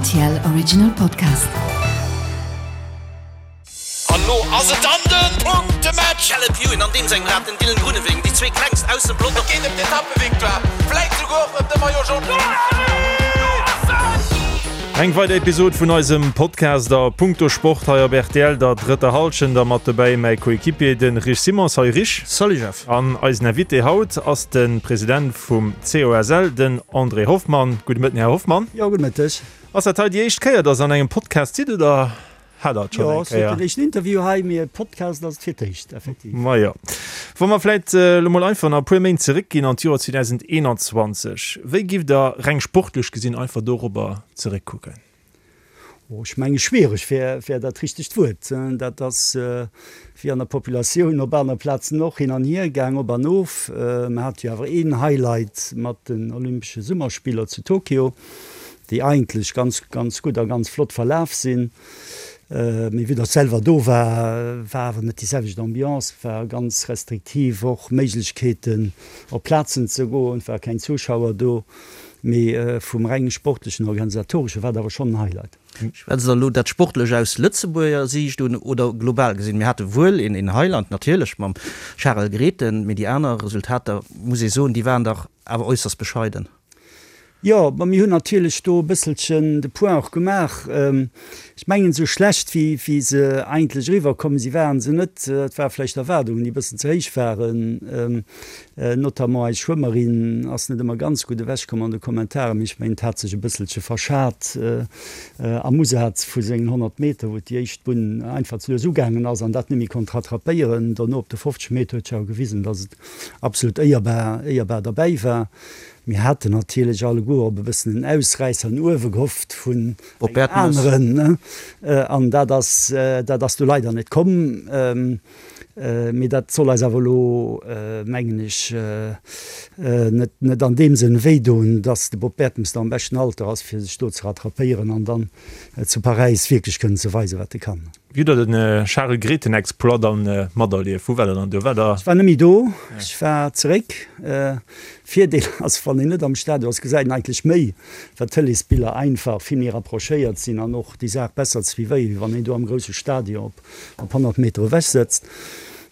RTL Original Podcast. An lo ass et dann den Punktematch! Caleb Ewan an deem sengem Rad den Dylan Groenewegen, déi zwee klengst aus dem Pelotong. Et geet ëm d'Etappevictoire, vläit souguer och ëm de Maillot Jaune. Eng weider Episod vun eisem Podcast a Punkto Sport hei op rtl, der drëtter Hallschent a mat dobäi mäi Coéquipier de Rich Simon. Salut Rich. Salut Jeff. An eisen Invité haut ass de President vum COSL, den André Hoffmann. Gudde Mëtten, Här Hoffmann. Jo, gudde Mëtteg. Ass dat hei déi éischt Kéier, dass Der an engem Podcast sidd, oder hat Der et schonn eng Kéier? Jo, et ass net den éischten Interview hei, mee e Podcast ass et fir d'éischt, effektiv. Majo. Wa mer vläit elo mol einfach nach e puer Méint zeréckginn an d'Joer 2021, wéi giff Der reng sportlech gesinn einfach dorobber zeréckkucken? Oh, ech menge schwiereg wär, wär dat richtegt Wuert. Dat ass wéi an der Populatioun op anere Plazen och hin an hier gaang, op an of. Mer hate jo awer een Highlight mat den Olympesche Summerspiller zu Tokio, déi eigentlech ganz, ganz gutt a ganz flott verlaf sinn. Mee vue datt selwer do war, war awer net déi selwecht Ambiance, war ganz restriktiv och Méiglechkeeten op Plazen ze goen, et ware keng Zuschauer do. Mee vum reng sportlechen, organisatoresche war et awer schonn en Highlight. Schwätzt Der elo dat Sportlech aus Lëtzebuerger Siicht un oder global gesinn? Mir hate wuel een Highlight natierlech mam Charel Grethen, mee déi aner Resultater, muss ee soen, déi waren dach awer äusserst bescheiden. Jo, ma mir hunn natierlech do e bësselchen de Point och gemaach. Ech mengen, esou schlecht wéi wéi se eigentlech eriwwer komm si waren se net. Et ware vläicht Erwaardungen, déi e bëssen ze héich waren. Notamment eis Schwëmmerin ass net ëmmer ganz gutt ewech komm an de Kommentaren, mee ech mengen et hat sech e bësselche verschat am Usaz vu sengen 100 Meter, wou déi éischt Bunn einfach ze lues ugaangen ass an dat net méi konnt rattrapéieren. Dono op de 50 Meter huet sech awer gewisen, datt et absolut éierbar, éierbar derbäi war. Mir haten natierlech alleguer op e bëssen en Ausräisser no uewe gehofft vun engem aneren, an dat ass, dat ass du leider net komm. Mee dat soll eis awer elo, mengen ech, net an deem Sënn wéidoen, dass de Bob Bertemes nach am beschten Alter ass, fir sech do ze rattrapéieren an dann zu Paräis wierklech kënnen ze weisen, wat e kann. Wéi hutt Der de Charel Grethen-Exploit dann materlieft? Wou war Der dann do? War Der. Ech war net méi do, ech war zeréck. Virdeel ass, wann een net am Stadion ass, gesäit een eigentlech méi, well d'Tëleesbiller einfach vill méi rapprochéiert sinn an och déi Saach besser suivéieren, wéi wann een do am grousse Stadion op op 100 Meter ewech sëtzt,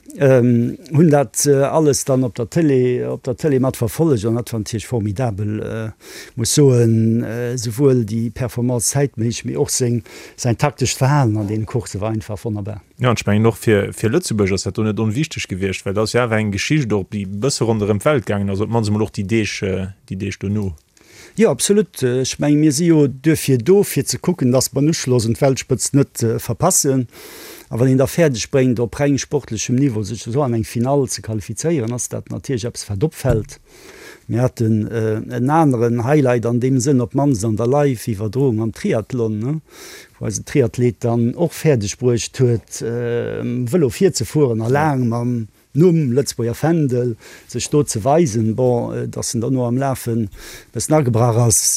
hunn dat alles dann op der Télé, op der Télé mat verfollegt an dat war natierlech formidabel, muss soen, souwuel déi Performance zäitméisseg, mee och seng, säin taktescht Verhalen an deene Coursse war einfach wonnerbar. Jo, an ech mengen och fir, fir Lëtzebuerg ass dat do net onwichteg gewiescht, well dat ass jo awer eng Geschicht och, déi e bësse ronderëm d'Welt gaangen ass, op d'mannst emol och déi Deeg, déi Deeg dono. Jo, absolut. Ech mengen, mir si jo duerfir do, fir ze kucken, dass mer den Uschloss un d'Weltspëtzt net verpassen. A wann een da fäerdeg bréngt, op reng sportlechem Niveau sech esou an eng Finall ze qualifizéieren, ass dat natierlech eppes, wat opfält. Mir haten en aneren Highlight an deem Sënn, op d'mannst an der Live-Iwwerdroung am Triathlon, wou eisen Triathlet dann och fäerdeg bruecht huet, Vëlo virzefueren a laang mam Numm, Lëtzebuerger Fändel, sech do ze weisen. Bon, datt en derno am Lafen e bëssen agebrach ass,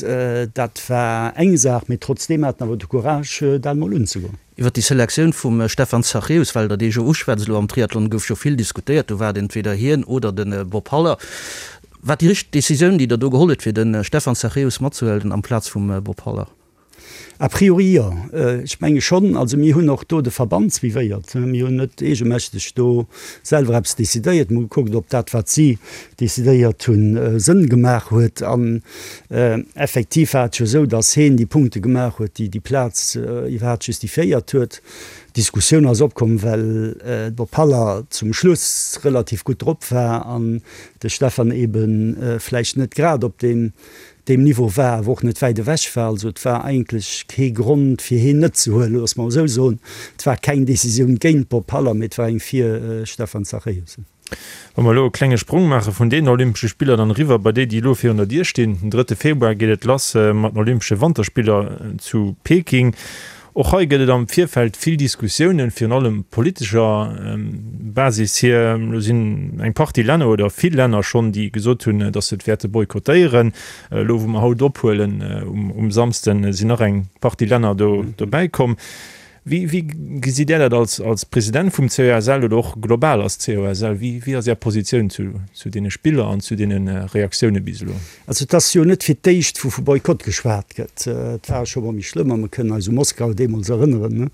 dat war eng Saach, mee trotzdeem hat en awer de Courage, dat emol unzegoen. Iwwer déi Selektioun vum Stefan Zachäus, well Der dee jo uschwätzt, elo am Triathlon gouf jo vill diskutéiert, do war et entweder hien oder de Bob Haller. War déi richteg Decisioun, déi Der do geholl hutt, fir de Stefan Zachäus matzehuelen amplaz vum Bob Haller? A priori jo. Ech menge schonn. Also mir hunn och do de Verband suivéiert. Mir hunn net eegemächteg do selwer eppes decidéiert. Mir hu gekuckt, ob dat, wat si decidéiert hunn, Sënn gemaach huet. An effektiv war et jo esou, datt heen déi Punkte gemaach huet, déi déi Plaz iwwerhaapt justifiéiert huet. D'Diskussioun ass opkomm, well de Bob Haller zum Schluss relativ gutt drop war an de Stefan ebe vläicht net grad op deem deem Niveau war, awer och net wäit ewech war. Also et war eigentlech kee Grond fir heen net ze huelen, loosse mer esou soen. Et war keng Decisioun géint Bob Haller, mee et war eng fir Stefan Zachäus. Wa mer elo e klenge Sprong maache vun deenen Olympesche Spiller dann eriwwer bei déi, déi elo virun der Dier stinn. Den drëtte Februar geet et lass mat den Olympesche Wanterspiller zu Peking. Och hei gëtt et am Virfeld vill Diskussiounen, virun allem politescher Basis hier. Elo sinn eng Partie Länner oder vill Länner schonn, déi gesot hunn, datt se et wäerte boykottéieren. Elo wou mer haut ophuelen um Samsden, sinn nach eng Partie Länner do dobäi komm. Wéi, wéi gesitt Där dat als, als President vum COSL oder och global als COSL? Wéi, wéi ass Är Positioun zu, zu deene Spiller an zu deene Reaktioune bis elo? Also et ass jo net fir d'éischt, wou vu Boykott geschwat gëtt. Et war scho mol méi schlëmm a mer kënnen eis u Moskau deemools erënneren.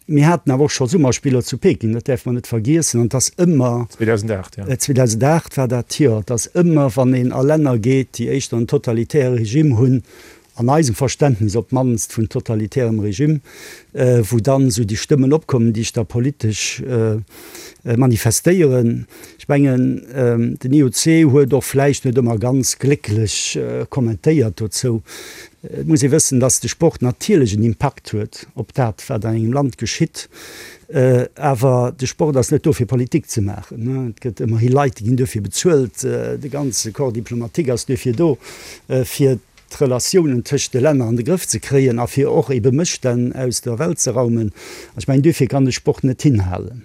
Mir haten awer och scho Summerspiller zu Peking, dat däerfe mer net vergiessen. An et ass ëmmer. 2008, jo. 2008 war dat, jo. Et ass ëmmer, wann een a Länner geet, déi éischter en totalitäre Regime hunn, an eisem Verständnis op d'mannst vun totalitärem Regime, wou dann esou déi Stëmmen opkommen, déi sech da politesch manifestéieren. Ech mengen, den IOC huet och vläicht net ëmmer ganz glécklech kommentéiert dozou. Et muss ee wëssen, dass de Sport natierlech en Impakt huet op dat, wat an engem Land geschitt. Awer de Sport ass net do, fir Politik ze maachen. Et gëtt ëmmerhi Leit, déi ginn duerfir bezuelt. De ganze Corps diplomatique ass duerfir do, fir d'Relatiounen tëscht de Länner an de Grëff ze kréien a fir och ebe Mësstänn aus der Welt ze raumen. An ech mengen, duerfir kann de Sport net hinhalen.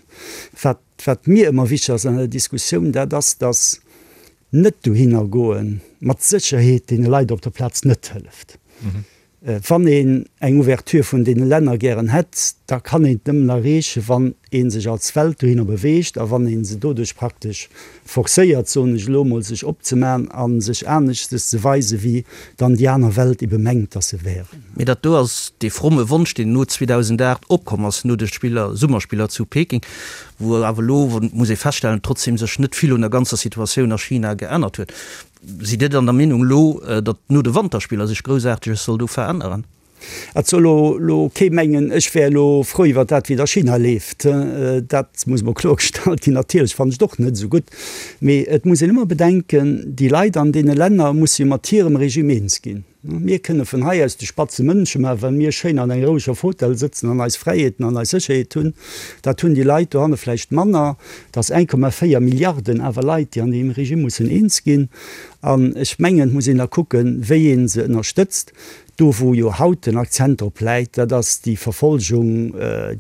Wat, wat mir ëmmer wichteg ass an der Diskussioun, dat ass, dass net dohinner goe mat Sécherheet deene Leit op der Plaz net hëlleft. Wann een eng Ouverture vun deene Länner gären hätt, da kann een et nëmmen erreechen, wann ee sech als Welt dohinner beweegt a wann ee se doduerch praktesch forcéiert, soen ech elo emol, sech opzemaachen a sech aneschtes ze weisen, wéi dann déi aner Welt ebe mengt, dass se wären. Mee dat do ass dee fromme Wonsch, deen no 2008 opkomm ass, no de Spiller, Summerspiller zu Peking, wou awer elo, muss ee feststellen, trotzdem sech net vill un der ganzer Situatioun a China geännert huet. Sidd Dir dann der Meenung elo, datt no de Wanterspiller sech Groussaarteges soll do veränneren? Et soll elo kee mengen, ech wär elo frou iwwer dat, wéi et a China leeft. Dat muss emol kloergestallt ginn. Natierlech fannen ech et och net esou gutt. Mee et muss een ëmmer bedenken, déi Leit an deene Länner musse jo mat hirem Regime eens ginn. Mir kënne vun hei aus de spatze Mënsche maachen, well mir schéin an enger roueger Fotell sëtzen an eis Fräiheeten an eis Sécherheet hunn. Dat hunn déi Leit dohanne vläicht manner. Et ass 1,4 Milliarden awer Leit, déi an deem Regime mussen eens ginn. An ech mengen, et muss een da kucken, wéi ee se ënnerstëtzt. Do wou jo haut den Akzent drop läit, dat ass déi Verfolgung,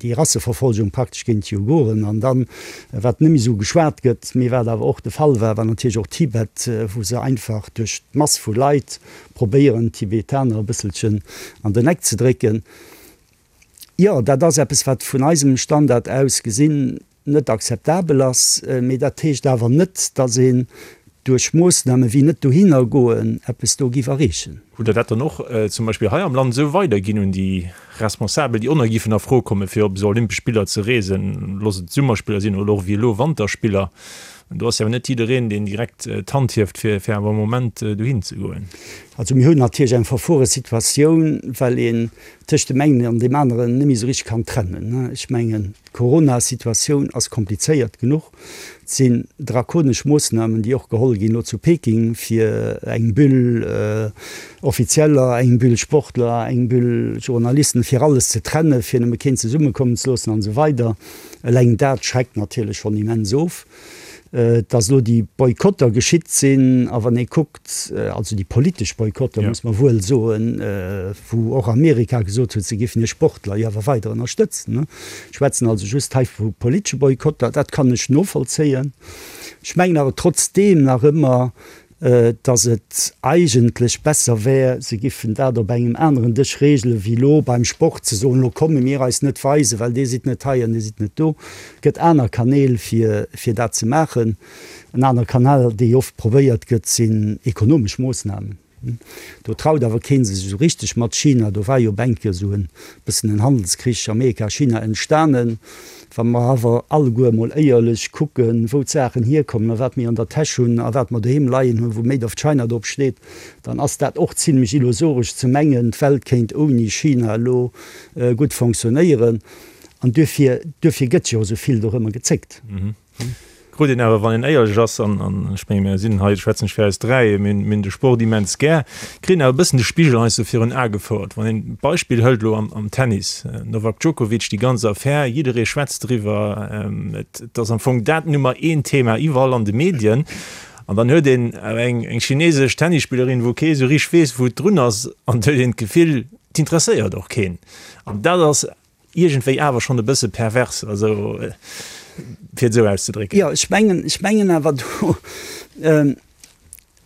déi Rasseverfolgung praktesch géint d'Uiguren. An dann, wat net méi esou geschwat gëtt, mee wat awer och de Fall war, war natierlech och Tibet, wou se einfach duerch d'Mass vu Leit probéieren d'Tibetaner e bësselchen an den Eck ze drécken. Jo, dat ass eppes, wat vun eisem Standard aus gesinn net akzeptabel ass. Mee dat heescht awer net, datt een duerch Moossname wéi net dohinner goen eppes do giff erreechen. Hutt Der dat dann och zum Beispill hei am Land esou weiderginn un déi Responsabel, déi och nach giffen a Fro kommen, fir op esou Olympesch Spiller ze reesen, looss et Summerspiller sinn oder och wéi elo Wanterspiller? Do ass jo awer net jiddereen, deen direkt d'Hand hieft, fir fir awer e Moment dohin ze goen. Also mir hunn natierlech eng verfuere Situatioun, well een tëscht deem engen an deem aneren net méi esou richteg kann trennen. Ech mengen, d'Corona-Situatioun ass komplizéiert genuch. Et sinn drakonesch Moossnamen, déi och geholl ginn elo zu Peking, fir eng Bulle Offizieller, eng Bulle Sportler, eng Bulle Journalisten, fir alles ze trennen, fir nëmme keen zesummekommen ze loossen an esou weider. Eleng dat schreckt natierlech schonn immens of, dass elo déi Boykotter geschitt sinn. A wann ee kuckt, also déi politesch Boykotter, muss mer wuel soen, wou och Amerika gesot huet, se géifen hir Sportler jo awer weider ënnerstëtzen. Ech schwätzen also just hei vu politesche Boykotter. Dat kann ech novollzéien. Ech mengen awer trotzdeem nach ëmmer, dass et eigentlech besser wär, se giffen dat op engem aneren Dësch regelen, wéi elo beim Sport ze soen, elo komme mir eis net weisen, well Dir sidd net hei an Dir sidd net do. Et gëtt aner Kanäl, fir, fir dat ze maachen. En anere Kanal, dee oft probéiert gëtt, sinn ekonomesch Moossnamen. Do traut awer kee sech esou richteg mat China. Do war jo op eng Kéier esou e bëssen en Handelskrich Amerika-China entstanen. Wa mer awer alleguer emol éierlech kucken, wou d'Saachen hierkommen a wat mir an der Täsch hunn a wat mer doheem leien hunn, wou Made of China drop steet, dann ass dat och zimlech illusoresch ze mengen, d'Welt kéint ouni China elo gutt fonctionnéieren. An duerfir, duerfir gëtt jo esou vill dorëmmer gezéckt. Krut een awer, wann een éierlech ass, an ech menge mir sinn hei, schwätzen ech fir eis dräi, mir hunn de Sport immens gär, kritt een awer e bëssen de Spigel heiansdo virun Ae gefouert. Wann een d'Beispill hëlt elo am Tennis, Novak Djokovic, déi ganz Affär, jidderee schwätzt driwwer, et ass am Fong dat Nummer een Thema iwwerall an de Medien. An dann huet een awer eng chinesesch Tennisspillerin, wou kee sou richteg weess, wou et drun ass, an et huet een d'Gefill, et interesséiert och keen. An dat ass iergendwéi awer schonn e bësse pervers, also fir et esou auszedrécken. Jo, ech mengen, ech mengen awer do,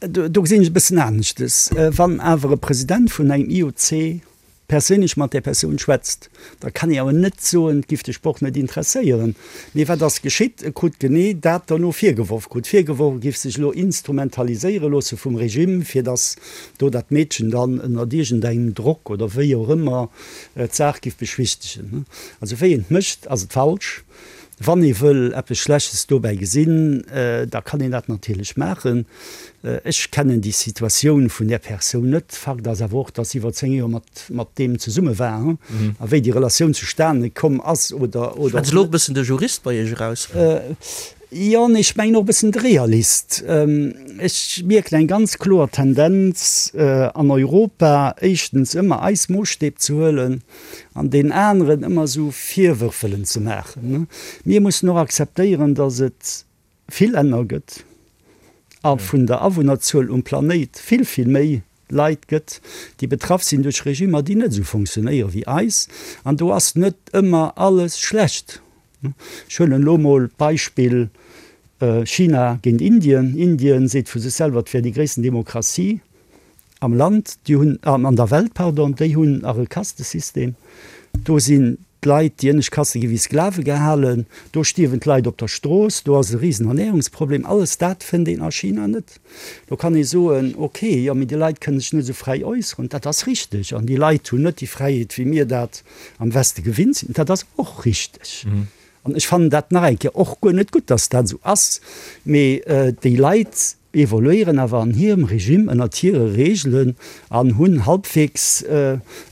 do gesinn ech e bëssen aneschtes. Wann awer e President vun engem IOC. perséinlech mat där Persoun schwätzt, da kann ee awer net soen, et giff de Sport net interesséieren. Mee wat ass geschitt? E krut genee dat derno virgeworf, krut virgeworf, e giff sech elo instrumentaliséiere loosse vum Regime, fir datt do dat Meedchen dann ënnert iergendengem Drock oder wéi och ëmmer d'Saach giff beschwichtegen. Also wéi een et mécht, ass et falsch. Wann ee wëll eppes Schlechtes dobäi gesinn, da kann een dat natierlech maachen. Ech kennen déi Situatioun vun där Persoun net. Fakt ass awer och, datt si iwwer 10 Joer mat mat deem zesumme war. A wéi déi Relatioun zustane komm ass oder oder. Schwätzt elo och e bëssen de Jurist bei Iech eraus? Jo, nee, ech mengen och e bëssen de Realist. Ech mierken eng ganz kloer Tendenz an Europa, éischtens ëmmer eis Moossstäb ze huelen an deenen aneren ëmmer esou Virwërf wëllen ze maachen. Mir mussen och akzeptéieren, datt et vill Länner gëtt a vun der Awunnerzuel um Planéit vill, vill méi Leit gëtt, déi betraff sinn duerch Regimmer, déi net esou fonctionnéiere wéi eis. An do ass net ëmmer alles schlecht. Ech huelen elo mol d'Beispill China géint Indien. Indien seet vu sech selwer, et wär déi gréissten Demokratie am Land, déi hunn, an der Welt, pardon, déi hunn nach e Kastesystem. Do sinn d'Leit, déi ënnescht Kaste gi wéi Sklave gehalen, do stierwen d'Leit op der Strooss, do ass e risen Ernährungsproblem. Alles dat fënnt een a China net. Do kann ee soen, ok, jo, mee déi Leit kënne sech net esou fräi äusseren. Dat ass richteg. An déi Leit hunn net déi Fräiheet, wéi mir dat am Weste gewinnt sinn. Dat ass och richteg. An ech fannen dat nach eng Kéier och guer net gutt, dass dat esou ass. Mee déi Leit evoluéieren awer an hirem Regime, ënnert hire Reegelen an hunn halbwegs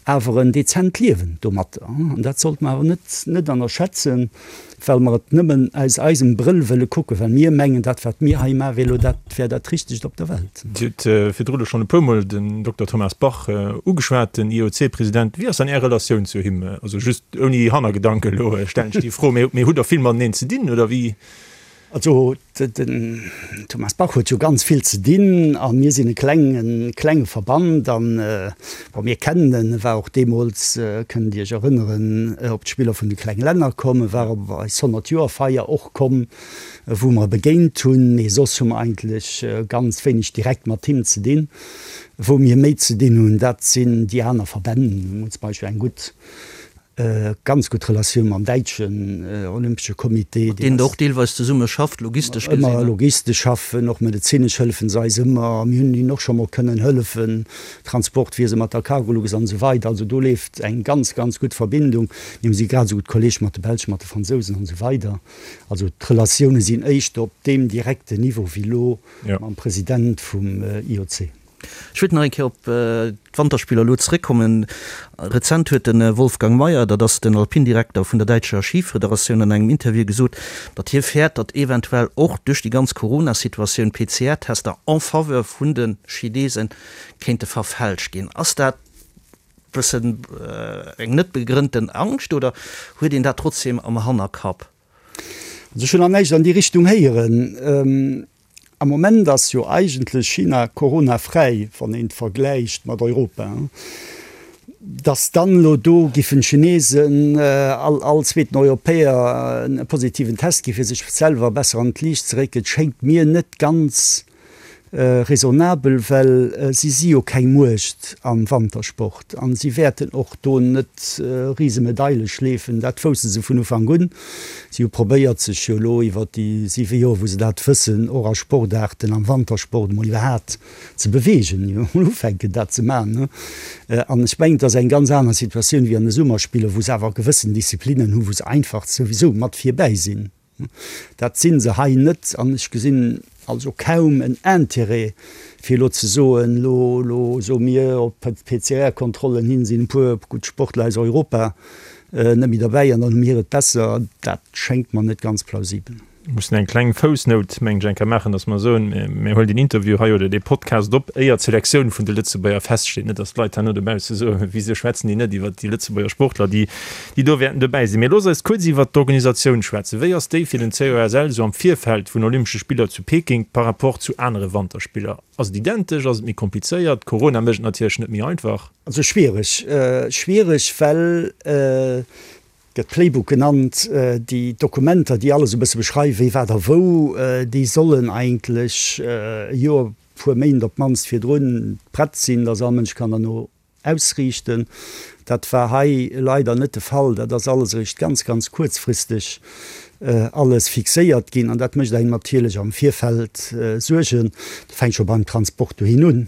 awer en dezent Liewen domatter. An dat sollte mer awer net net ënnerschätzen. Well mer et nëmmen aus eisem Brëll wëlle kucken, well mir mengen, dat wat mir hei maachen, wär elo dat, wär dat Richtegt op der Welt. Dir hutt virdru elo schonn e puermol den Dokter Thomas Bach ugeschwat, den IOC-President. Wéi ass dann Är Relatioun zu him? Also just ouni Hannergedanken elo stellen ech déi Fro, mee hutt Der vill mateneen ze dinn oder wéi? Also den Thomas Bach huet jo ganz vill ze dinn a mir sinn e klengen, klenge Verband an, bon, mir kennen en, e war och deemools, kënnt Dir Iech erënneren, op d'Spiller vun de klenge Länner komm, e war op eis 100 Joer Feier och komm, wou mer e begéint hunn, mee soss hu mer eigentlech ganz wéineg direkt mat him ze dinn. Wou mir méi ze dinn hunn, dat sinn déi aner Verbänn. Mir hunn zum Beispill eng gutt Ganz gutt Relatioun mam däitschen Olympesche Comité. Mat deenen Der och deelweis zesumme schafft, logistesch gesinn. Ëmmer logistesch schaffen, och medezinesch hëllefen se eis ëmmer. Mir hunn hinnen och scho mol kënnen hëllefen, Transportwiese mat der Cargolux an esou weider. Also do leeft eng ganz, ganz gutt Verbindung. Mir si grad esou gutt Kolleeg mat de Belschen, mat de Fransousen an esou weider. Also d'Relatioune sinn éischter op deem direkten Niveau wéi elo mam President vum IOC. Ech wéilt nach eng Kéier op d'Wanterspiller elo zeréckkommen. Rezent huet de Wolfgang Mayer, dat ass den Alpindirekter vun der däitscher Schifederatioun, an engem Interview gesot, datt hie fäert, datt eventuell och duerch déi ganz Corona-Situatioun PCR-Tester en faveur vun de Chinese kéinte verfälscht ginn. Ass dat bëssen eng net begrënnten Angscht oder huet een dat trotzdeem am Hannerkapp? Also ech hunn nach näischt an déi Richtung héieren. Am Moment ass jo eigentlech China coronafräi, wann een et vergläicht mat Europa. Datt dann elo do giffen d'Chinesen all all zweeten Europäer e positiven Test gi fir sech selwer besser an d'Liicht ze récken, schéngt mir net ganz raisonnabel, well si si jo keng Muecht am Wantersport an si wäerten och do net rise Medaile schleefen, dat wousste se vun Ufank un. Si hu probéiert sech jo elo iwwer déi siwe Joer wou se dat wëssen, och a Sportaarten am Wantersport emol iwwerhaat ze beweegen, emol ufänken dat ze maachen. An ech mengen, et ass eng ganz aner Situatioun wéi an de Summerspiller, wou se awer gewëssen Disziplinnen hu wou se einfach souwisou mat virbäi sinn. Dat si se hei net an ech gesinn also kaum en Intérêt, fir elo ze soen, elo, elo soe mir, op d'PCR-Kontrollen hin sinn e puer gutt Sportler aus Europa net méi derbäi an dann hu mir et besser. Dat schéngt mer net ganz plausibel. Mir mussen eng kleng Foussnout, mengen ech, eng Kéier maachen, dass mer soen, mir huelen deen Interview hei oder dee Podcast op, éier d'Selektioun vun de Lëtzebuerger feststeet. Net, dass d'Leit herno dobausse soen, Wisou schwätzen déi net iwwert déi Lëtzebuerger Sportler, déi déi do wäerten dobäi sinn. Mee looss eis kuerz iwwert d'Organisatioun schwätzen. Wéi ass déi fir den COSL esou am Virfeld vun Olympesche Spiller zu Peking par rapport zu anere Wanterspiller? Ass et identesch? Ass et méi komplizéiert? Corona mécht et natierlech net méi einfach. Also schwiereg, schwiereg, well gëtt Playbook genannt, déi Dokumenter, déi alles e bësse beschreiwen, wéi, wat a wou, déi sollen eigentlech e Joer, puer Méint op d'mannst virdrun prett sinn, dass all Mënsch kann derno. ausriichten. Dat war hei leider net de Fall. Dat ass alles eréischt ganz, ganz kuerzfristeg alles fixéiert ginn an dat mécht engem natierlech am Virfeld Suergen. Dat fänkt scho beim Transport dohin un.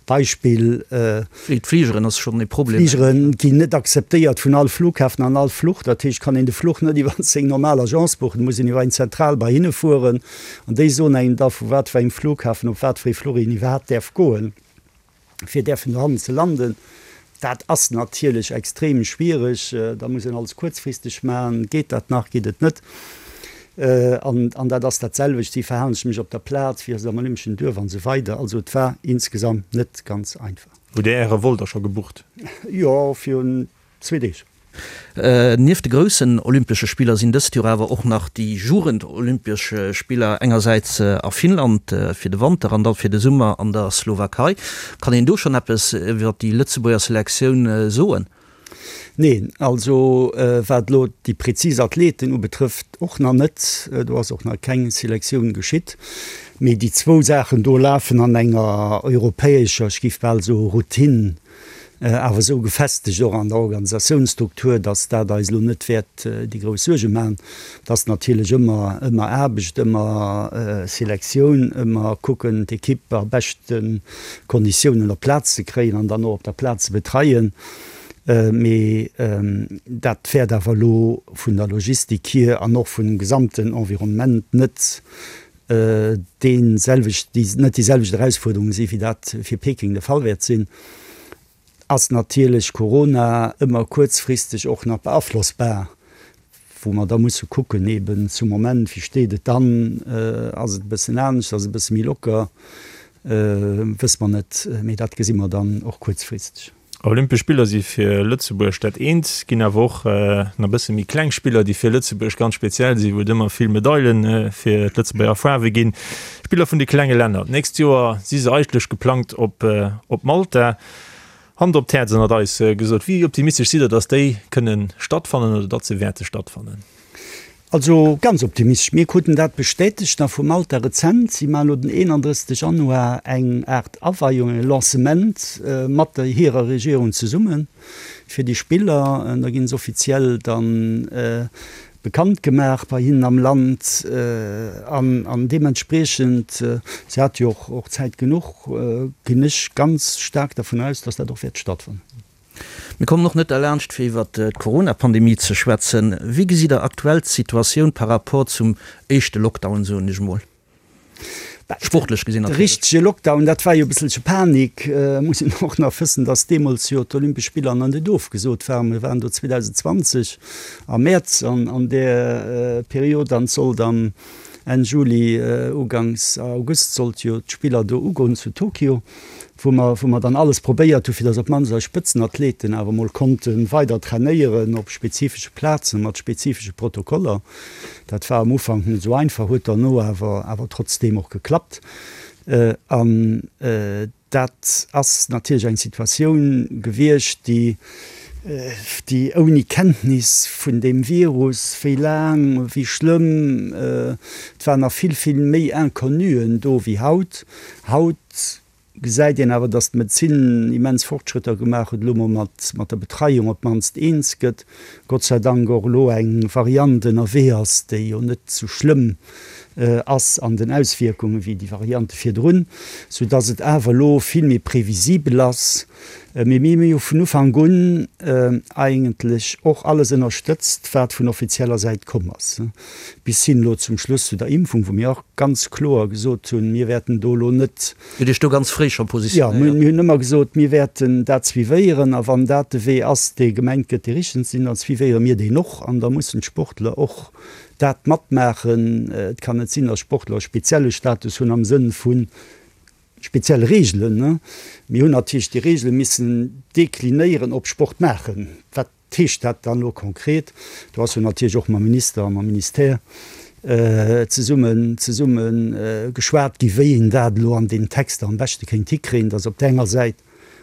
Beispill. D'Fligeren ass schonn e Problem. D'Fligere ginn net akzeptéiert vun all Flughafen an all Fluch. Dat heescht, kann een de Fluch net iwwer seng normal Agence buchen, et muss een iwwer eng Zentral bei hinne fueren an déi soen engem da vu wat fir engem Flughafen op wat fir ee Fluch een iwwerhaapt däerf goen, fir däerfen dohannen ze landen. Dat ass natierlech extrem schwiereg. Da muss een alles kuerzfristeg maachen. Geet dat nach, geet et net? An, an dat ass dat selwecht, wéi verhalen ech mech op der Plaz, wéi ass et am Olympeschen Duerf an esou weider. Also et war insgesamt net ganz einfach. Hutt Dir Äre Vol da scho gebucht? Jo, virun zwee Deeg. Nieft de groussen Olympesche Spiller sinn dëst Joer awer och nach déi Jugend-Olympesch Spiller engersäits a Finnland fir de Wanter an da fir de Summer an der Slowakei. Kann een do schonn eppes iwwer déi Lëtzebuerger Selektioun soen? Neen, also wat elo déi prezis Athleten ubetrëfft, och nach net. Do ass och nach keng Selektioun geschitt. Mee déi zwou Saachen do lafen an enger europäescher, ech géif bal soe Routine awer esou gefestegt och an der Organisatiounsstruktur, datt dat eis elo net wäert déi grouss Suerge maachen. Et ass natierlech ëmmer, ëmmer Aarbecht, ëmmer Selektioun, ëmmer kucken, d'Ekipp a beschte Konditiounen op d'Plaz ze kréien an dann och op der Plaz ze betreien. Mee dat wäert awer elo vun der Logistik hier an och vum gesamten Environnement net dee selwecht, déi net déi selwecht Erausfuerderunge si wéi dat fir Peking de Fall wäert sinn, ass natierlech Corona ëmmer kuerzfristeg och nach beaflossbar, wou mer da musse kucken eben zum Moment, wéi steet et dann, ass et e bëssen anescht, ass et e bësse méi locker, wësse mer net, mee dat gesi mer dann och kuerzfristeg. Olympesch Spiller si fir Lëtzebuerg dat eent, ginn awer och nach e bësse méi kleng Spiller, déi fir Lëtzebuerg ganz speziell sinn, wou et ëmmer vill Medaile fir d'Lëtzebuerger Faarwe ginn. Spiller vun de klenge Länner. D'nächst Joer si se eigentlech geplangt op op Malta. Hand op d'Häerz ënnert eis gesot, wéi optimistesch sidd Der, datt déi kënne stattfannen oder datt se wäerte stattfannen? Also ganz optimistesch. Mir kruten dat bestätegt nach vu Malta rezent. Si maachen elo den 31 Januar eng Aart Aweiung, e Lancement mat der hirer Regierung zesumme fir déi Spiller. Da ginn se offiziell dann bekannt gemaach bei hinnen am Land an deementspriechend, si hate jo och Zäit genuch, ginn ech ganz staark dervun aus, datt dat och wäert stattfannen. Mir kommen och net derlaanscht, fir iwwert d'Corona-Pandemie ze schwätzen. Wéi gesitt Der aktuell d'Situatioun par rapport zum éischte Lockdown, soen ech emol, sportlech gesinn natierlech? De richtege Lockdown, dat war jo e bësselche Panik. Muss een och nach wëssen, datt deemools jo d'Olympesch Spiller nach net ofgesot waren. Mir waren do 2020 am Mäerz an där Period an et sollt am Enn Juli, uganks August sollt jo d'Spiller do ugoen zu Tokio, wou mer, wou mer dann alles probéiert hu fir datt op d'mannst eis Spëtzenathleten awer mol konnte weider trainéieren op spezifesche Plazen, mat spezifesche Protokoller. Dat war am Ufank net esou einfach, huet derno awer, awer trotzdeem och geklappt. An Dat ass natierlech eng Situatioun gewiescht, déi, déi ouni Kenntnis vun deem Virus, wéi laang, wéi schlëmm, et waren nach vill, vill méi Inconnuen do wéi haut. Haut gesäit een awer, datt d'Medezin immens Fortschrëtter gemaach huet, elo mol mat, mat der Betreiung op d'mannst eens gëtt. Gott sei Dank och elo eng Variant ënnerwee ass, déi jo net sou schlëmm ass an den Auswierkunge wéi déi Variante virdrun, sou dass et awer elo vill méi previsibel ass. Mee mir hu jo vun Ufank un eigentlech och alles ënnerstëtzt, wat vun offizieller Säit komm ass, bis hin elo zum Schluss zu der Impfung, wou mir och ganz kloer gesot hunn, mir wäerten do elo net, Dir hutt Iech do ganz fréi scho positionéiert. Jo, mir hunn ëmmer gesot, mir wäerten dat suivéieren a wann dat de Wee ass, dee gemengt gëtt, dee richteg ze sinn, da suivéiere mir deen och an da mussen d'Sportler och dat matmaachen. Et kann net sinn, datt Sportler e spezielle Status hunn am Sënn vu spezielle Reegelen. Mir hunn natierlech déi Reegele missen deklinéieren op Sport maachen. Wat heescht dat dann elo konkret? Do ass jo natierlech och mam Minister a mam Ministère zesummen zesumme geschwat gi wéi een dat elo an deenen Texter am beschte kéint hikréien, datt op där enger Säit.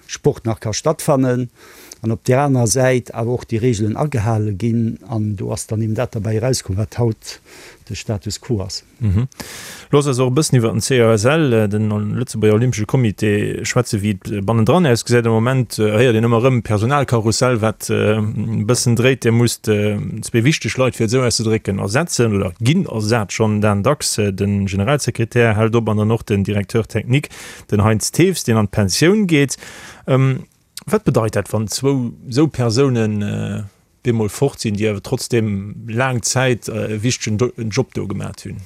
Sport nach ka stattfannen an op där anerer Säit awer och déi Regeln agehale ginn. An do ass dann eben dat derbäi erauskomm, wat haut de Status quo ass. Looss eis och e bëssen iwwer den COSL, den Lëtzebuerger Olympesche Comité, schwätzen, wéi et bannendran ausgesäit. Am Moment héiert een ëmmer erëm Personalkarussell, wat e bëssen dréit. Dir musst zwee wichteg Leit, fir et esou auszedrécken, ersetzen oder ginn ersat schonn. Dan Dax, de Generalsekretär, hält op an dann och den Directeur technique. Den Heinz Thews, deen an d'Pensioun geet. Wat bedeit dat, wann zwou esou Persounen bemol fort sinn, déi awer trotzdeem laang Zäit e wichtegen Job do gemat hunn?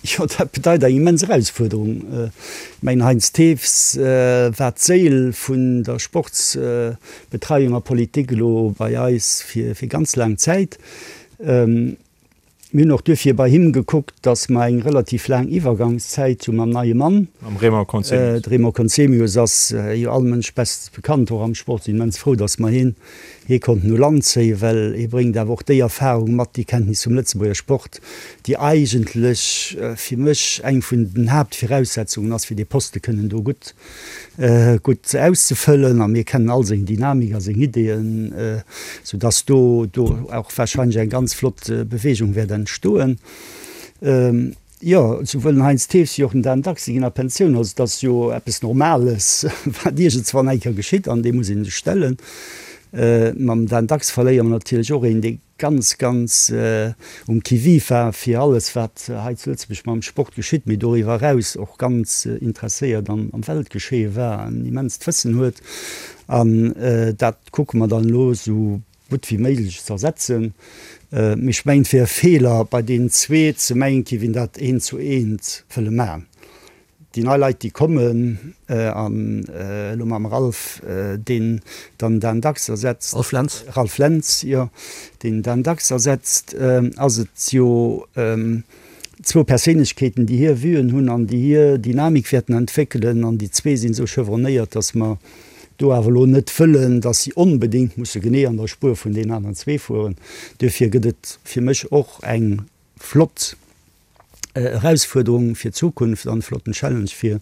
Jo, dat bedeit eng immens Erausfuerderung. Ech mengen, Heinz Thews war d'Séil vun der Sportsbetreiung a Politik elo bei eis fir ganz laang Zäit. Mir hunn och duerfir bei him gekuckt, dass mer eng relativ laang Iwwergangszäit hu mam neie Mann. Mam Raymond Conzemius. De Raymond Conzemius ass jo all Mënsch bestens bekannt, och am Sport. Sinn immens frou, dass mer hien hie konnten u Land zéien, well hie bréngt awer och déi Erfahrung mat, déi Kenntnis vum Lëtzebuerger Sport, déi eigentlech fir mech eng vun den Haaptviraussetzungen ass, fir dee Poste kënnen do gutt gutt auszefëllen a mir kennen all seng Dynamik a seng Ideeën, sou dass do do och wahrscheinlech eng ganz flott Bewegung wäert entstoen. Jo, souwuel den Heinz Thews wéi och den Dan Dax, si ginn a Pensioun. Also et ass jo eppes Normales, wat iergendswann eng Kéier geschitt an deem muss ee sech stellen. Mam Dan Dax verléiere mer natierlech och een, dee ganz, ganz um Qui-vive war fir alles, wat hei zu Lëtzebuerg mam Sport geschitt, mee doriwwer eraus och ganz interesséiert am Weltgeschéie war, en immenst Wëssen huet. An dat kucke mer dann elo esou gutt wéi méiglech ze ersetzen. Mee ech mengen, et wier e Feeler, bei deenen zwee ze mengen, et géif een dat eent zu eent wëlle maachen. Déi nei Leit, déi kommen, an elo mam Ralph, deen dann Dan Dax ersetzt. Ralph Lentz. Ralph Lentz, jo, deen Dan Dax ersetzt, ass et jo zwou Perséinlechkeeten, déi hir Vuen hunn an déi hir Dynamik wäerten entwéckelen. An déi zwee sinn esou chevronnéiert, datt mer do awer elo net wëllen, datt si onbedéngt musse genee an der Spuer vun deenen aneren zwee fueren. Duerfir gëtt et fir mech och eng flott Erausfuerderung fir d'Zukunft an e flotten Challenge fir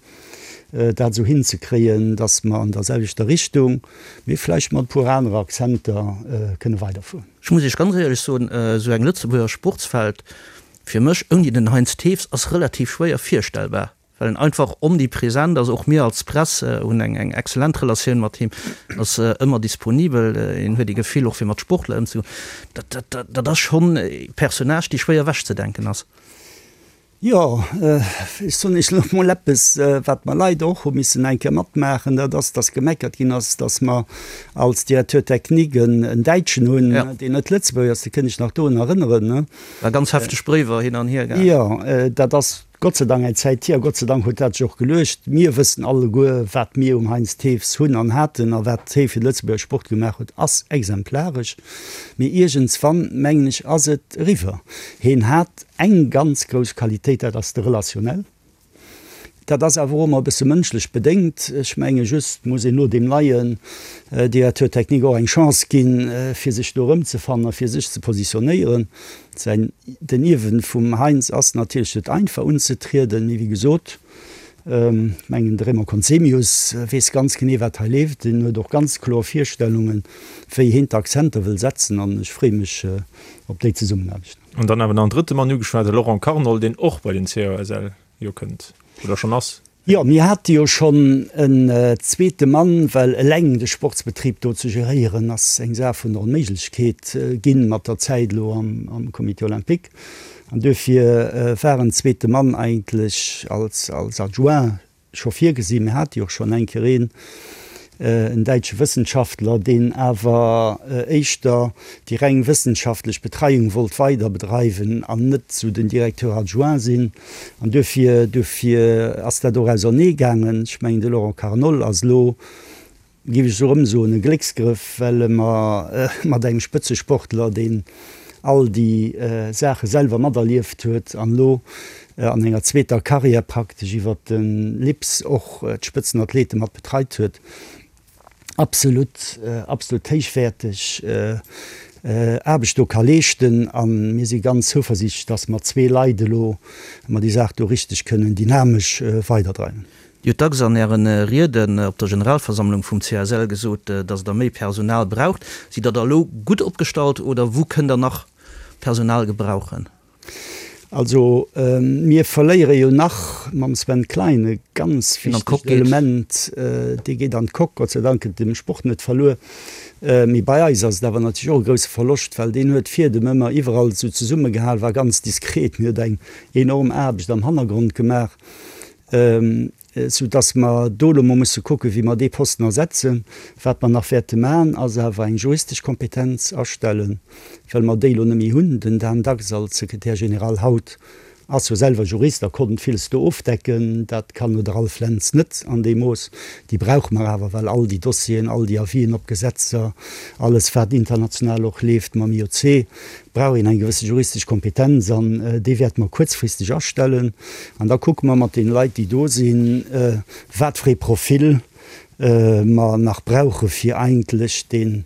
dat esou hinzekréien, dass mer an der selwechter Richtung, mee vläicht mat e puer anere Akzenter kënne weiderfueren. Ech muss Iech ganz éierlech soen, esou eng Lëtzebuerger Sportswelt fir mech ouni den Heinz Thews ass relativ schwéier virstellbar. Well en einfach omnipresent ass. Och mir als Press hunn eng eng excellent Relatioun mat him, ass ëmmer disponibel, en huet ee Gefill och fir mat Sportler ëmzegoen. Dat dat dat ass schonn e Personnage, dee schwéier ewechzedenken ass. Jo, ech soen Iech elo mol eppes, wat mer leider och hu missen eng Kéier matmaachen, dat ass, dass gemeckert ginn ass, dass mer als Directeur technique en Däitschen hunn, deen net Lëtzebuerger ass. Do kënn ech nach dorun erënneren. War ganz hefteg Bréiwer hin an hier gaangen. Jo, dat ass Gott sei Dank eng Zäit hier, a Gott sei Dank huet dat sech och geluecht. Mir wëssen alleguer, wat mir um Heinz Thews hunn an haten a wat hee fir de Lëtzebuerger Sport gemaach huet, ass exemplaresch. Mee iergendswann, mengen ech, ass et eriwwer. Heen hat eng ganz grouss Qualitéit, dat ass de Relationnel. Dat ass awer och ëmmer e bësse mënschlech bedéngt. Ech menge just muss een elo deem neien Directeur technique och eng Chance ginn, fir sech do erëmzefannen a fir sech ze positionéieren. Säin, den Ierwen vum Heinz ass natierlech net einfach unzetrieden, mee wéi gesot, ech mengen de Raymond Conzemius weess ganz genee wat hei leeft, en huet och ganz kloer Virstellungen, wéi heen d'Akzenter wëll setzen an ech freeë mech op déi Zesummenaarbecht. An dann awer nach en drëtte Mann ugeschwat, de Laurent Carnol, deen och bei den COSL jo kënnt oder schonn ass. Jo, mir hate jo schonn en zweete Mann, well eleng de Sportsbetrib do ze geréieren ass eng Saach vun der Onméiglechkeet ginn mat der Zäit elo am Comité olympique. An duerfir war en zweete Mann eigentlech als Adjoint scho virgesinn. Mir hate jo och schonn eng Kéier een, en däitsche Wëssenschaftler, deen awer éischter déi reng wëssenschaftlech Betreiung wollt weider bedreiwen an net esou den Directeur adjoint sinn. An duerfir, duerfir ass dat och ausernee gaangen. Ech mengen, de Laurent Carnol ass elo, géif ech esou erëm soen, e Glécksgrëff, well e mer mat engem Spëtzesportler, deen all déi Saache selwer materlieft huet an elo an enger zweeter Karriär praktesch iwwert de LIPS och d'Spëtzenathlete mat betreit huet, absolut, absolut héichwäerteg Aarbecht do ka leeschten. A mir si ganz zouversiichtlech, dass mat zwee Leit elo mer déi Saach do richteg kënnen dynamesch weiderdreiwen. Dir hutt dacks an Äre Rieden op der Generalversammlung vum CSL gesot, datt Der méi Personal braucht. Sidd Der da elo gutt opgestallt oder wou kënnt Der nach Personal gebrauchen? Also mir verléiere jo nach mam Sven Klein e ganz wichtegt Element, dee geet an d'Coque. Gott sei Dank gëtt dem Sport net verluer. Mee bei eis ass et awer natierlech och e grousse Verloscht, well deen huet d'Fiedem ëmmer iwwerall esou zesummegehal, war ganz diskret, mee huet eng enorm Aarbecht am Hannergrond gemaach. Sou dass mer do elo mol musse kucken, wéi mer dee Posten ersetzen. Wat mer nach wäerte maachen, ass awer eng juristesch Kompetenz astellen, well mer déi elo net méi hunn. Den Dan Dax als Secrétaire général haut ass jo selwer Jurist a konnt villes do ofdecken. Dat kann elo de Ralph Lentz net an deem Mooss. Déi brauche mer awer, well all déi Dossieren, all déi Avisen op Gesetzer, alles wat international och leeft mam IOC, brauch een eng gewësse juristesch Kompetenz an déi wäerte mer kuerzfristeg astellen. An da kucke mer mat deene Leit, déi do sinn, wat fir ee Profil mer nach brauche fir eigentlech dee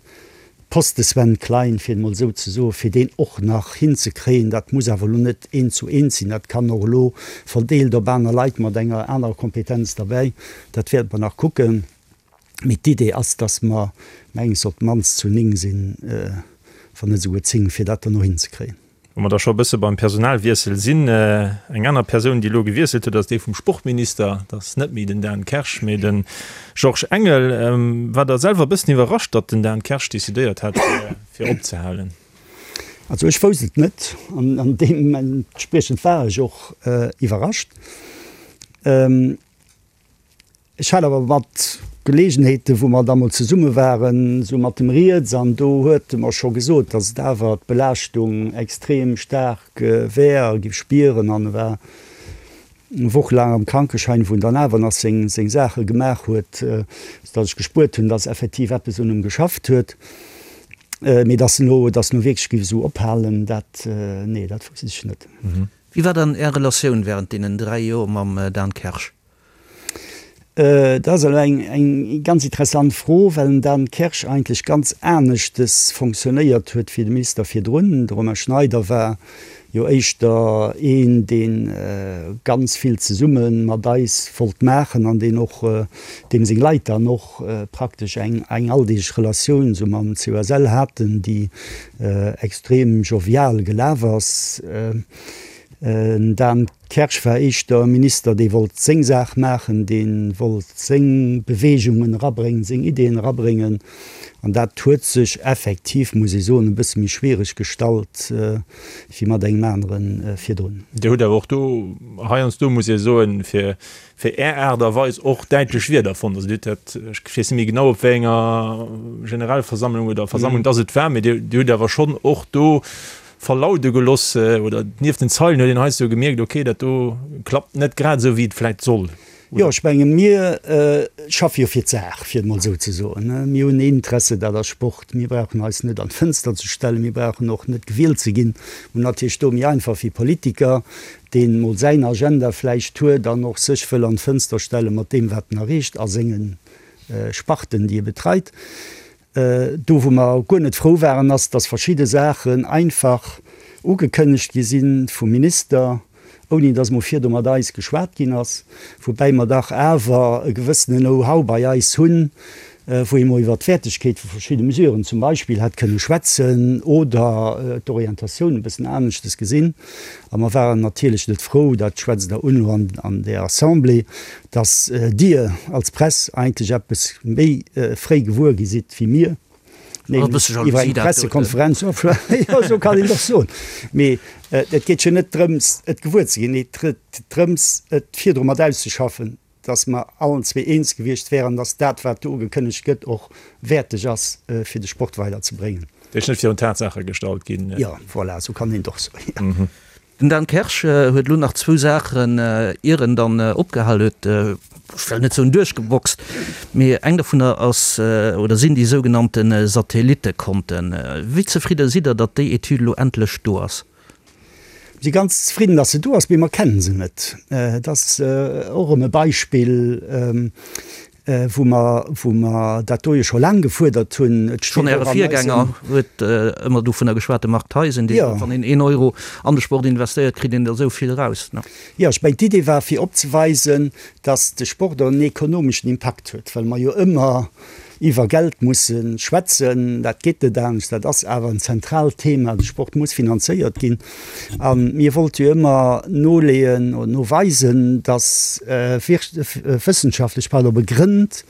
Poste Sven Klein, fir et emol esou ze soen, fir deen och nach hinzekréien. Dat muss awer elo net eent zu eent sinn, dat kann och elo verdeelt op aner Leit mat enger anerer Kompetenz derbäi. Dat wäerte mer nach kucken. Mee d'Idee ass, dass mer mengs op d'mannst zu 9 sinn, wann net esouguer 10, fir dat dann och hinzekréien. Wa mer da scho e bësse beim Personalwiessel sinn, Eng aner Persoun, déi elo gewiesselt huet, ass déi vum Sportminister. Dat ass net méi den Dan Kersch, mee de Georges Engel. War Der selwer e bëssen iwwerrascht, datt den Dan Kersch decidéiert hat, fir opzehalen? Also ech wousst et net an deementspriechend war ech och iwwerrascht. Ech hat awer mat Geleegenheeten, wou mer da mol zesumme waren, esou mat em rieds, an do huet e mer scho gesot, datt et awer d'Belaaschtung extrem staark wär a giff spieren. An e war eng Woch laang am Krankeschäin, wou en dann awer nach seng seng Saache gemaach huet, sou datt ech gespuert hunn, datt effektiv eppes un em geschafft huet. Mee datt en elo, datt en elo wierklech giff esou ophalen, dat, nee, dat wousst ech net. Wéi war dann Är Relatioun während deenen 3 Joer mam Dan Kersch? Dat ass elo eng ganz interessant Fro, well den Dan Kersch eigentlech ganz aneschtes fonctionnéiert huet wéi de Minister virdrun. De Romain Schneider war jo éischter een, dee ganz vill zesumme mat eis wollt maachen an deen och, deem seng Leit dann och praktesch eng alldeeglech Relatioun esou mam COSL haten, déi extrem jovial gelaf ass. Den Dan Kersch war éischter e Minister, dee wollt seng Saach maachen, dee wollt seng Beweegungen erabréngen, seng Ideeën erabréngen. An dat huet sech effektiv, muss ee soen, e bësse méi schwiereg gestallt wéi mat engem anere virdrun. Dir hutt awer och do heiansdo, muss ee soen, fir fir Är Aart a Weis och däitlech Wierder fonnt. Also Dir hutt dat, ech weess net méi genau, op wéi enger Generalversammlung oder Versammlung dass et war, mee Dir hutt awer schonn och do verlaude geloss oder nieft den Zeilen huet een heiansdo gemierkt, okay, dat do klappt net grad esou, wéi et vläicht soll. Jo, ech menge mir schaffe jo fir d'Saach, fir et emol esou ze soen. Mir hunn een Interesse, dat ass Sport. Mir brauchen eis net an d'Fënster ze stellen, mir brauchen och net gewielt ze ginn. Mir hunn natierlech do méi einfach wéi Politiker, deen emol säin Agenda vläicht huet an och sech wëll an d'Fënster stelle mat deem, wat en erreecht a senge Sparten, déi e betreit. Do wou mer guer net frou waren, ass, dass verschidde Saachen einfach ugekënnegt gi si vum Minister, ouni dass mol virdu mat eis geschwat ginn ass, woubäi mer dach awer e gewëssene Know-how bei eis hunn, wou ee mol iwwert d'Wäertegkeet vu verschidde Mesuren zum Beispill hätt kënne schwätzen oder d'Orientatioun e bëssen aneschtes gesinn. A mer waren natierlech net frou, dat schwätzt Der un elo an där Assemblée, dass Dir als Press eigentlech eppes méi fréi gewuer gi sidd wéi mir, nämlech iwwer eng Pressekonferenz. Jo, esou kann een et och soen. Mee et geet jo net drëms, et gewuer ze ginn, et geet drëms, et virdru mat auszeschaffen, dass mer allen zwee eens gewiescht wären, dass dat, wat do ugekënnegt gëtt, och wäerteg ass, fir de Sport weiderzebréngen. Dir net virun d'Tatsaache gestallt ginn. Jo, voilà, esou kann een et och soen. Den Dan Kersch huet elo nach zwou Saachen, ier en dann opgehal huet, ech well net soen duerchgeboxt, mee eng dovunner ass oder sinn déi sougenannte Satellittekonten. Wéi zefridde sidd Der, datt déi Etüd elo endlech do ass? Mir si ganz zefridden, datt se do ass, mee mer kennen se net. Et ass och erëm e Beispill. wou mer, wou mer dat do jo scho laang gefuerdert hunn. Et steet Schonn Äre och an eisem. Virgänger huet ëmmer dovunner geschwat, de Marc Theisen, dee sot, wann een een Euro an de Sport investéiert, kritt een der esou vill eraus. Jo, ech mengen, d'Idee war fir opzeweisen, datt de Sport och en ekonomeschen Impakt huet, well mer jo ëmmer iwwer Geld musse schwätzen. Dat geet net anescht, dat ass awer en zentraalt Thema, de Sport muss finanzéiert ginn. A mir wollte jo ëmmer noleeën oder noweisen, datt wëssenschaftlech, pardon, begrënnt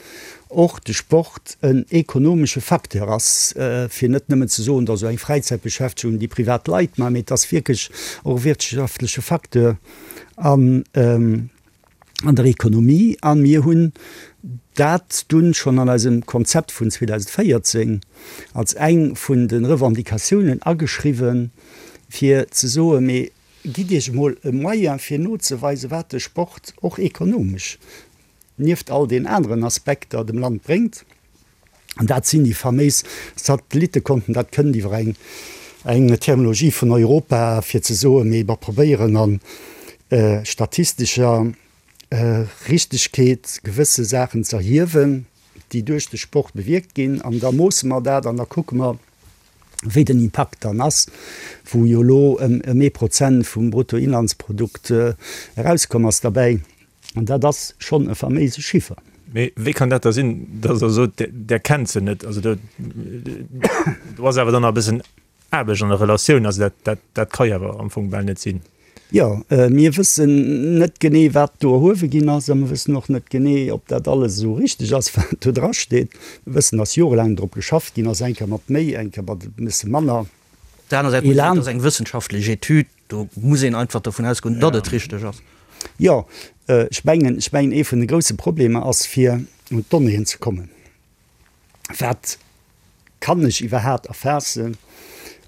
och de Sport en ekonomesche Facteur ass, fir net nëmmen ze soen, dat ass esou eng Fräizäitbeschäftegung, déi privat Leit maachen, mee et ass wierklech och e wirtschaftleche Facteur an an der Ekonomie. A mir hunn dat dunn schonn an eisem Konzept vun 2014 als eng vun de Revendicatiounen ageschriwwen, fir ze soen, mee gitt Iech emol e Moyen, fir nozeweisen, wat de Sport och ekonomesch nieft all den aneren Aspekter dem Land bréngt. An dat sinn déi faméis Satellittekonten. Dat kënnt iwwer eng eng Terminologie vun Europa, fir ze soen, mee mer probéieren a statistescher Richtegkeet gewësse Saachen z'erhiewen, déi duerch de Sport bewierkt ginn. An da moosse mer dat an da kucke mer, wéi den Impakt dann ass, wou jo elo ëm ee Prozent vum Bruttoinlandsprodukt erauskomm ass derbäi. An dat ass schonn e faméise Chiffer. Mee wéi kann dat da sinn, datt Der sot, Der kennt se net? Also do do ass awer dann nach e bëssen Aarbecht an der Relatioun. Also dat dat dat ka jo awer am Fong bal net sinn. Jo, mir wëssen net genee, wat do erhuewe ginn ass a mir wëssen och net genee, ob dat alles esou richteg ass, wat do drasteet. Mir wëssen, datt jorelaang drop geschafft ginn ass, eng Kéier mat méi, eng Kéier mat e bësse manner Op der aner Säit muss een soen, et ass eng wëssenschaftlech Etüd. Do muss een einfach dovun ausgoen, datt et richteg ass. Jo, ech mengen, ech mengen, ee vun de grousse Problemer ass, fir un d'Donnéeën ze kommen. Wat kann ech iwwerhaapt erfaassen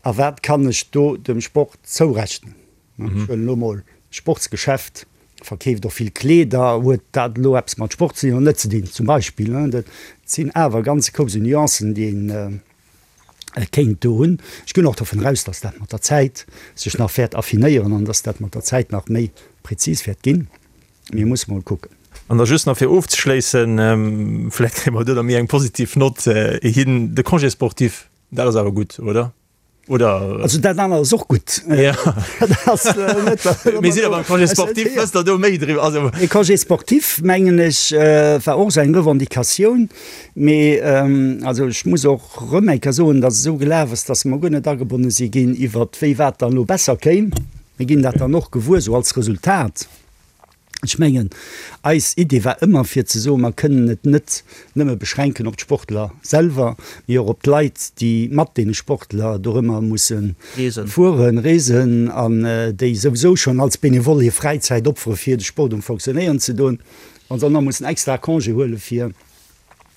a wat kann ech do dem Sport zourechnen? Ech huelen elo emol d'Sportsgeschäft, verkeeft och vill Kleeder, huet dat elo eppes mat Sport ze dinn oder net ze dinn, zum Beispill? Dat sinn awer e ganze Koup esou Nuancen, déi een kéint do hunn. Ech ginn och dovun eraus, dass dat mat der Zäit sech nach wäert affinéieren an dass dat mat der Zäit nach méi prezis wäert ginn. Mir musse mol kucken. An da just nach fir ofzeschléissen, vläicht kréie mer do da méi eng positiv Nott hin, de Congé sportif, dat ass awer gutt, oder? Oder? Also dat anert ass och gutt. Ja. Dat ass net. Mir sinn awer beim Congé sportif, wësst Der do méi driwwer? Also. De Congé sportif, mengen ech, war och esou eng Revendicatioun. Mee also ech muss och erëm eng Kéier soen, datt et esou gelaf ass, datt mer guer net agebonne si ginn iwwert wéi wat dann elo besser kéim. Mir ginn dat dann och gewuer esou als Resultat. Ech mengen, eis Idee war ëmmer fir ze soen, mer kënnen et net nëmme beschränken op d'Sportler selwer, mee och op d'Leit, déi mat deene Sportler dorëmmer musse fueren, reesen an déi souwisou schonn als Benevole hir Fräizäit opfere fir de Sport um Fonctionnéieren ze doen. Wa se dann nach mussen extra Congé huele fir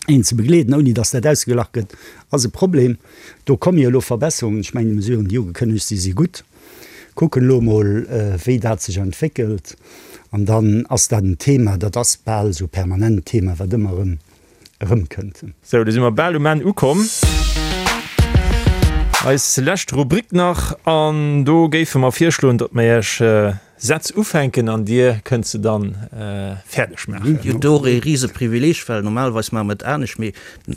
een ze begleeden, ouni datt dat ausgeglach gëtt, ass e Problem. Do komme jo elo Verbesserungen. Ech mengen, déi Mesuren, déi ugekënnegt si, si gutt. Kucken elo emol, wéi dat sech entwéckelt. An dann ass dat en Thema, dat ass bal esou e permanent Thema, wat ëmmer erëm erëmkënnt. Sou, do si mer bal um Enn ukomm. Eis lescht Rubrik nach, an do géife mer virschloen, datt mer Iech Sätz ufänken an Dir kënnt se dann fäerdeg maachen. Jo, do och ee rise Privileeg, well normalerweis maache mer et anescht, mee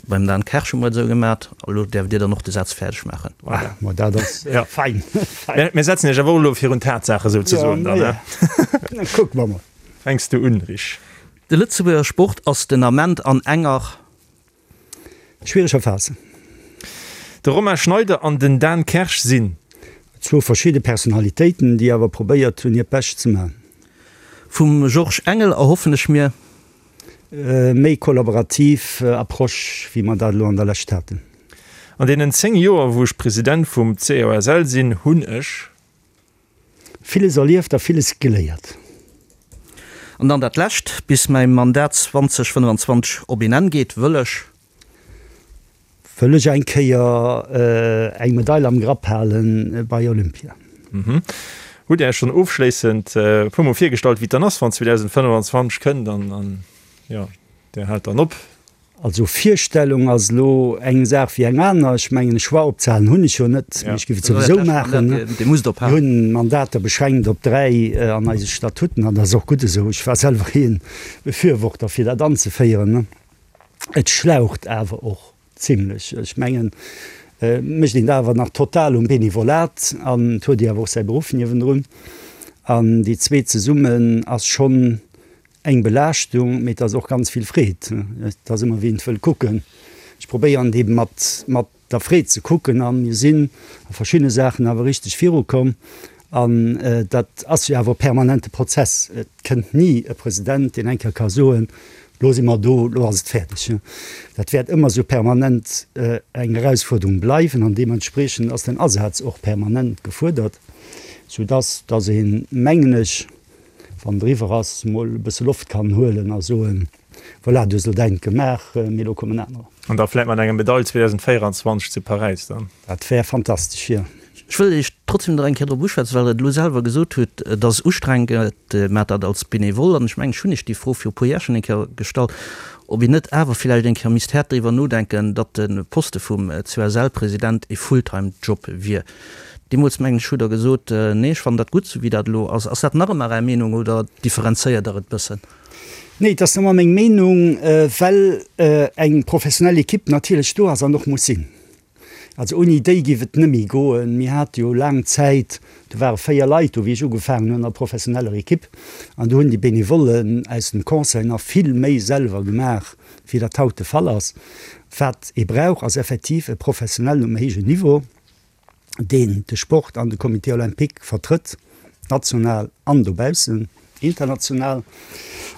beim Dan Kersch hu mer et esou gemat. Elo däerft Dir dann och de Saz fäerdeg maachen. Voilà, ma dat ass fein. Mir setzen Iech awer och elo virun d'Tatsaache souzesoen dann, ne? Jo, kucke mer mol. Fänks du un, Rich? De Lëtzebuerger Sport ass den Ament an enger. Schwiereger Phase. De Romain Schneider an den Dan Kersch sinn. Zwou verschidde Personalitéiten, déi awer probéiert hunn, hiert Bescht ze maachen. Vum Georges Engel erhoffen ech mir. Méi kollaborativ Approche, wéi mer dat elo an der Lescht haten. An deenen 10 Joer, wou ech President vum COSL sinn, hunn ech. Villes erlieft a villes geléiert. An dann dat Lescht, Bis mäi Mandat 2025 op een Enn geet, wëll ech. Wëll ech eng Kéier eng Medail am Grapp hale bei Olympia. Hutt Dir Iech schonn ofschléissend e puer Mol virgestallt, wéi et dann ass, wann 2025 kënnt an, jo, Dir haalt dann op? Also Virstellung ass elo eng Saach wéi eng aner. Ech mengen, e Choix opzehalen hunn ech jo net, mee ech géif et souwisou maachen. Mir hunn Mandater beschränkt op 3 an eise Statuten an dat ass och gutt esou. Ech war selwer ee Befürworter fir dat anzeféieren. Et schlaucht awer och zimlech. Ech mengen, et mécht een dat awer nach total um Benevolat an et huet ee awer och säi Beruff niewendrun. An déi zweet zesummen ass schonn eng Belaaschtung, mee et ass och ganz vill Freed. Et ass ëmmer wéi een et wëll kucken. Ech probéieren et eebe mat, mat der Freed ze kucken a mir sinn a verschiddene Saachen awer richteg virukomm. An dat ass jo awer e permanente Prozess. Et kënnt ni e President, deen eng Kéier ka soen, Lo si mer do, lo ass et fäerdeg. Dat wäert ëmmer esou permanent eng Erausfuerderung bleiwen an deementspriechend ass den Asaz och permanent gefuerdert, soudass dass een, mengen ech, wann et eriwwer ass, mol e bësse Loft kann huelen a soen, Voilà, du hues elo däint gemaach, mee elo kommen anerer. An da vläit mat enger Medail 2024 zu Paräis dann. Dat wär fantastesch, jo. Ech wëll Iech trotzdem nach eng Kéier drop uschwätzen, well Der et elo selwer gesot hutt, et ass ustrengend, Dir maacht dat als Benevole. An ech mengen, ech hunn Iech déi Fro viru puer Jar schonn eng Kéier gestallt, ob een net awer villäicht eng Kéier misst haart driwwer nodenken, datt de Poste vum COSL-President e Fulltime-Job wier. Deemools, mengen ech, hutt Der gesot, Nee, ech fannen dat gutt, esou wéi dat elo ass. Ass dat nach ëmmer Är Meenung oder differenzéiert Der et bëssen? Nee, et ass nëmmer meng Meenung, well eng professionell Equipe natierlech do ass an och muss sinn. Also ouni déi géif et net méi goen. Mir hate jo laang Zäit, do ware 4 Leit do, wéi ech ugefaangen hunn, an der professioneller Equipe. An do hunn déi Benevollen aus dem Conseil nach vill méi selwer gemaach, wéi dat haut de Fall ass. Wat ee brauch, ass effektiv e Professionellen um héijen Niveau, deen de Sport an de Comité olympique vertrëtt, national an dobaussen, international.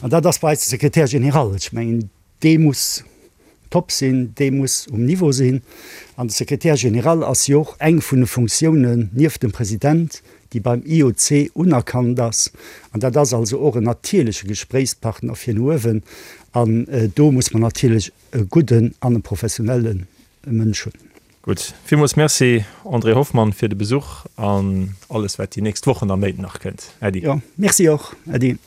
An dat ass bei eis de Secrétaire général. Ech mengen, Dee muss top sinn, dee muss um Niveau sinn. An de Secrétaire général ass jo och eng vun de Funktiounen nieft dem President, déi beim IOC unerkannt ass. An dat ass also och en natierleche Gespréichspartner fir no uewen. An do muss mer natierlech e gudden an e professionelle Mënsch hunn. Gutt, villmools Merci André Hoffmann fir de Besuch an alles wat déi nächst Wochen a Méint nach kënnt. Äddi. Jo, Merci och. Äddi.